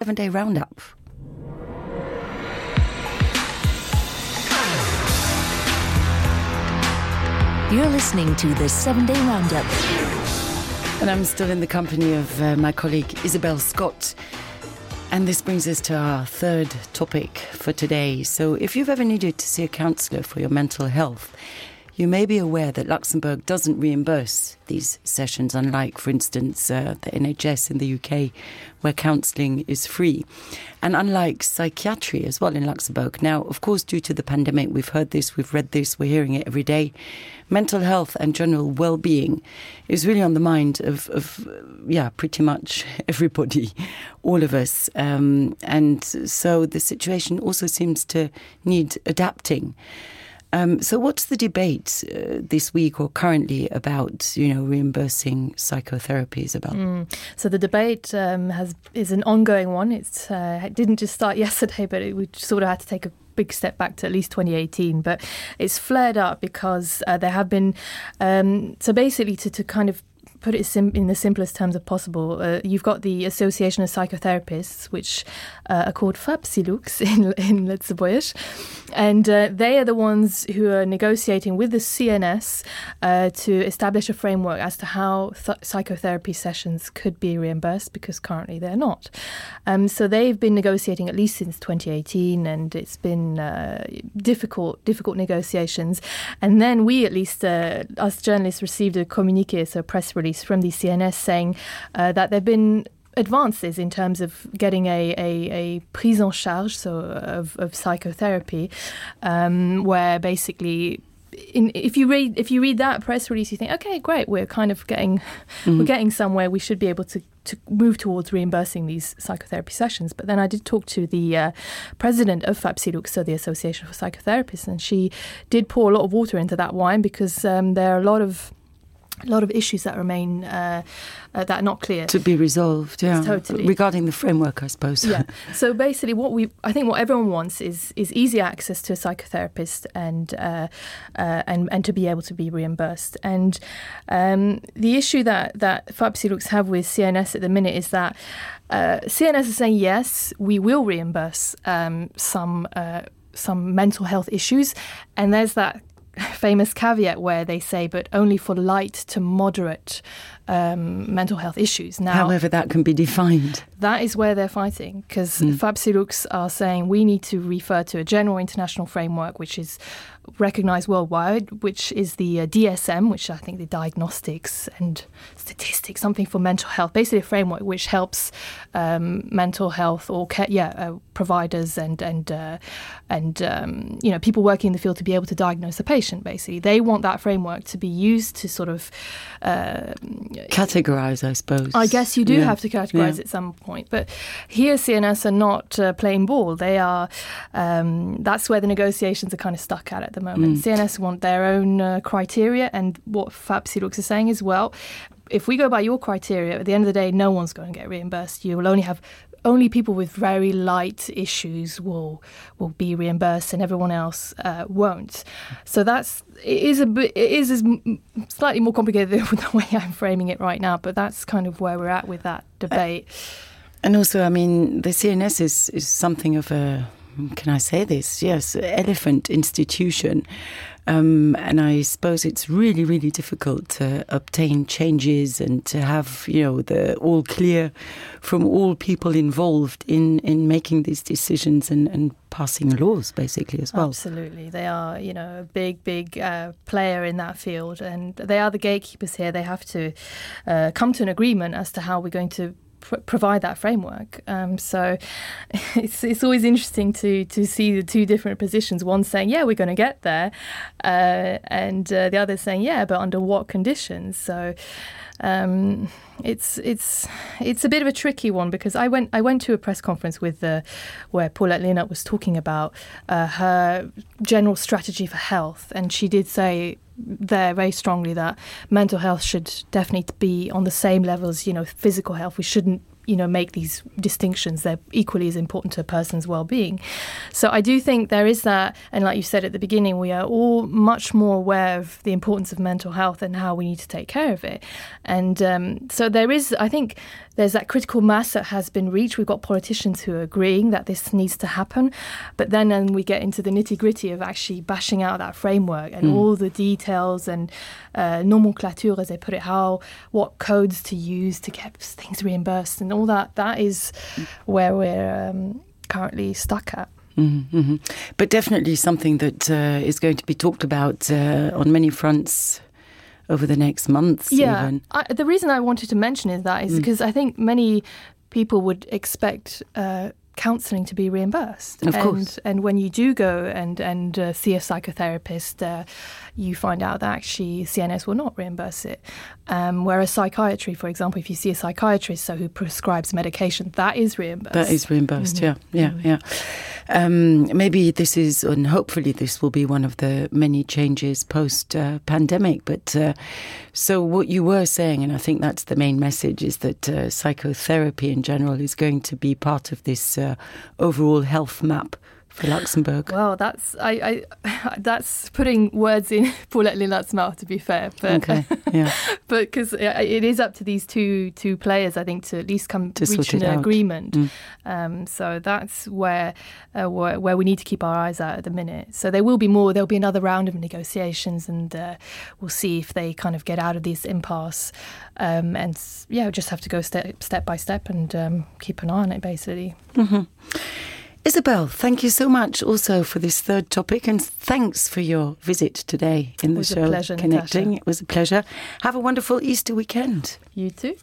7-day roundup. You're listening to the 7-day roundup. And I'm still in the company of my colleague Isabel Scott. And this brings us to our third topic for today. So if you've ever needed to see a counsellor for your mental health, you may be aware that Luxembourg doesn't reimburse these sessions, unlike, for instance, the NHS in the UK, where counselling is free. And unlike psychiatry as well in Luxembourg. Now, of course, due to the pandemic, we've heard this, we've read this, we're hearing it every day. Mental health and general well-being is really on the mind of pretty much everybody, all of us. And so the situation also seems to need adapting. So what's the debate this week or currently about, reimbursing psychotherapies about? So the debate is an ongoing one. It didn't just start yesterday, but we sort of had to take a big step back to at least 2018. But it's flared up because there have been, so basically to kind of put it in the simplest terms of possible, you've got the Association of Psychotherapists, which are called FAPSILUX in Luxembourgish, and they are the ones who are negotiating with the CNS to establish a framework as to how psychotherapy sessions could be reimbursed, because currently they're not. So they've been negotiating at least since 2018, and it's been difficult negotiations. And then we, at least us journalists, received a communiqué, so a press release from the CNS saying that there have been advances in terms of getting a prise en charge, so of psychotherapy, where basically if you read that press release, you think, okay, great, we're kind of getting somewhere. We should be able to move towards reimbursing these psychotherapy sessions. But then I did talk to the president of FAPSILUX, so the Association for Psychotherapists, and she did pour a lot of water into that wine, because there are a lot of issues that remain that are not clear. To be resolved, yeah. Totally. Regarding the framework, I suppose. Yeah. So basically I think what everyone wants is easy access to a psychotherapist and to be able to be reimbursed. And the issue that FAPSILUX have with CNS at the minute is that CNS is saying, yes, we will reimburse some mental health issues. And there's that famous caveat where they say, but only for light to moderate mental health issues. Now, however that can be defined. That is where they're fighting, because FAPSILUX are saying we need to refer to a general international framework which is recognised worldwide, which is the DSM, which I think the Diagnostics and Statistics, something for mental health, basically a framework which helps mental health or providers and people working in the field to be able to diagnose a patient. Basically, they want that framework to be used to sort of categorise, I suppose. I guess you do have to categorise at some point, but here CNS are not playing ball. They are. That's where the negotiations are kind of stuck at the moment. CNS want their own criteria, and what FAPSILUX is saying is, well, if we go by your criteria, at the end of the day, no one's going to get reimbursed. You will only people with very light issues will be reimbursed, and everyone else won't. So it is slightly more complicated than the way I'm framing it right now, but that's kind of where we're at with that debate. And also, I mean, the CNS is something of a, can I say this? Yes, elephant institution. And I suppose it's really, really difficult to obtain changes and to have, the all clear from all people involved in making these decisions and passing laws, basically, as well. Absolutely. They are, a big player in that field, and they are the gatekeepers here. They have to come to an agreement as to how we're going to provide that framework. So it's always interesting to see the two different positions. One saying, yeah, we're going to get there, and the other saying, yeah, but under what conditions? So it's a bit of a tricky one, because I went to a press conference where Paulette Leonard was talking about her general strategy for health, and she did say there very strongly that mental health should definitely be on the same level as physical health. We shouldn't make these distinctions. They're equally as important to a person's well-being. So I do think there is that, and like you said at the beginning, we are all much more aware of the importance of mental health and how we need to take care of it. And so there is, I think, there's that critical mass that has been reached. We've got politicians who are agreeing that this needs to happen. But then we get into the nitty-gritty of actually bashing out that framework and all the details and nomenclature, as they put it, what codes to use to get things reimbursed and all that. That is where we're currently stuck at. Mm-hmm. But definitely something that is going to be talked about on many fronts over the next months. Yeah, even. The reason I wanted to mention is because I think many people would expect counselling to be reimbursed. Of course. And when you do go and see a psychotherapist, you find out that actually CNS will not reimburse it. Whereas psychiatry, for example, if you see a psychiatrist who prescribes medication, that is reimbursed. That is reimbursed, yeah. Maybe this is, and hopefully this will be one of the many changes post-pandemic. But so what you were saying, and I think that's the main message, is that psychotherapy in general is going to be part of this overall health map for Luxembourg. Well, that's putting words in Paulette Lilat's mouth, to be fair. But, okay, yeah. But because it is up to these two players, I think, to at least reach an agreement. So that's where we need to keep our eyes out at the minute. So there will be more. There'll be another round of negotiations, and we'll see if they kind of get out of this impasse. And we'll just have to go step by step and keep an eye on it, basically. Mm-hmm. Isabel, thank you so much also for this third topic, and thanks for your visit today in the show. It was a pleasure, Connecting. Natasha. It was a pleasure. Have a wonderful Easter weekend. You too.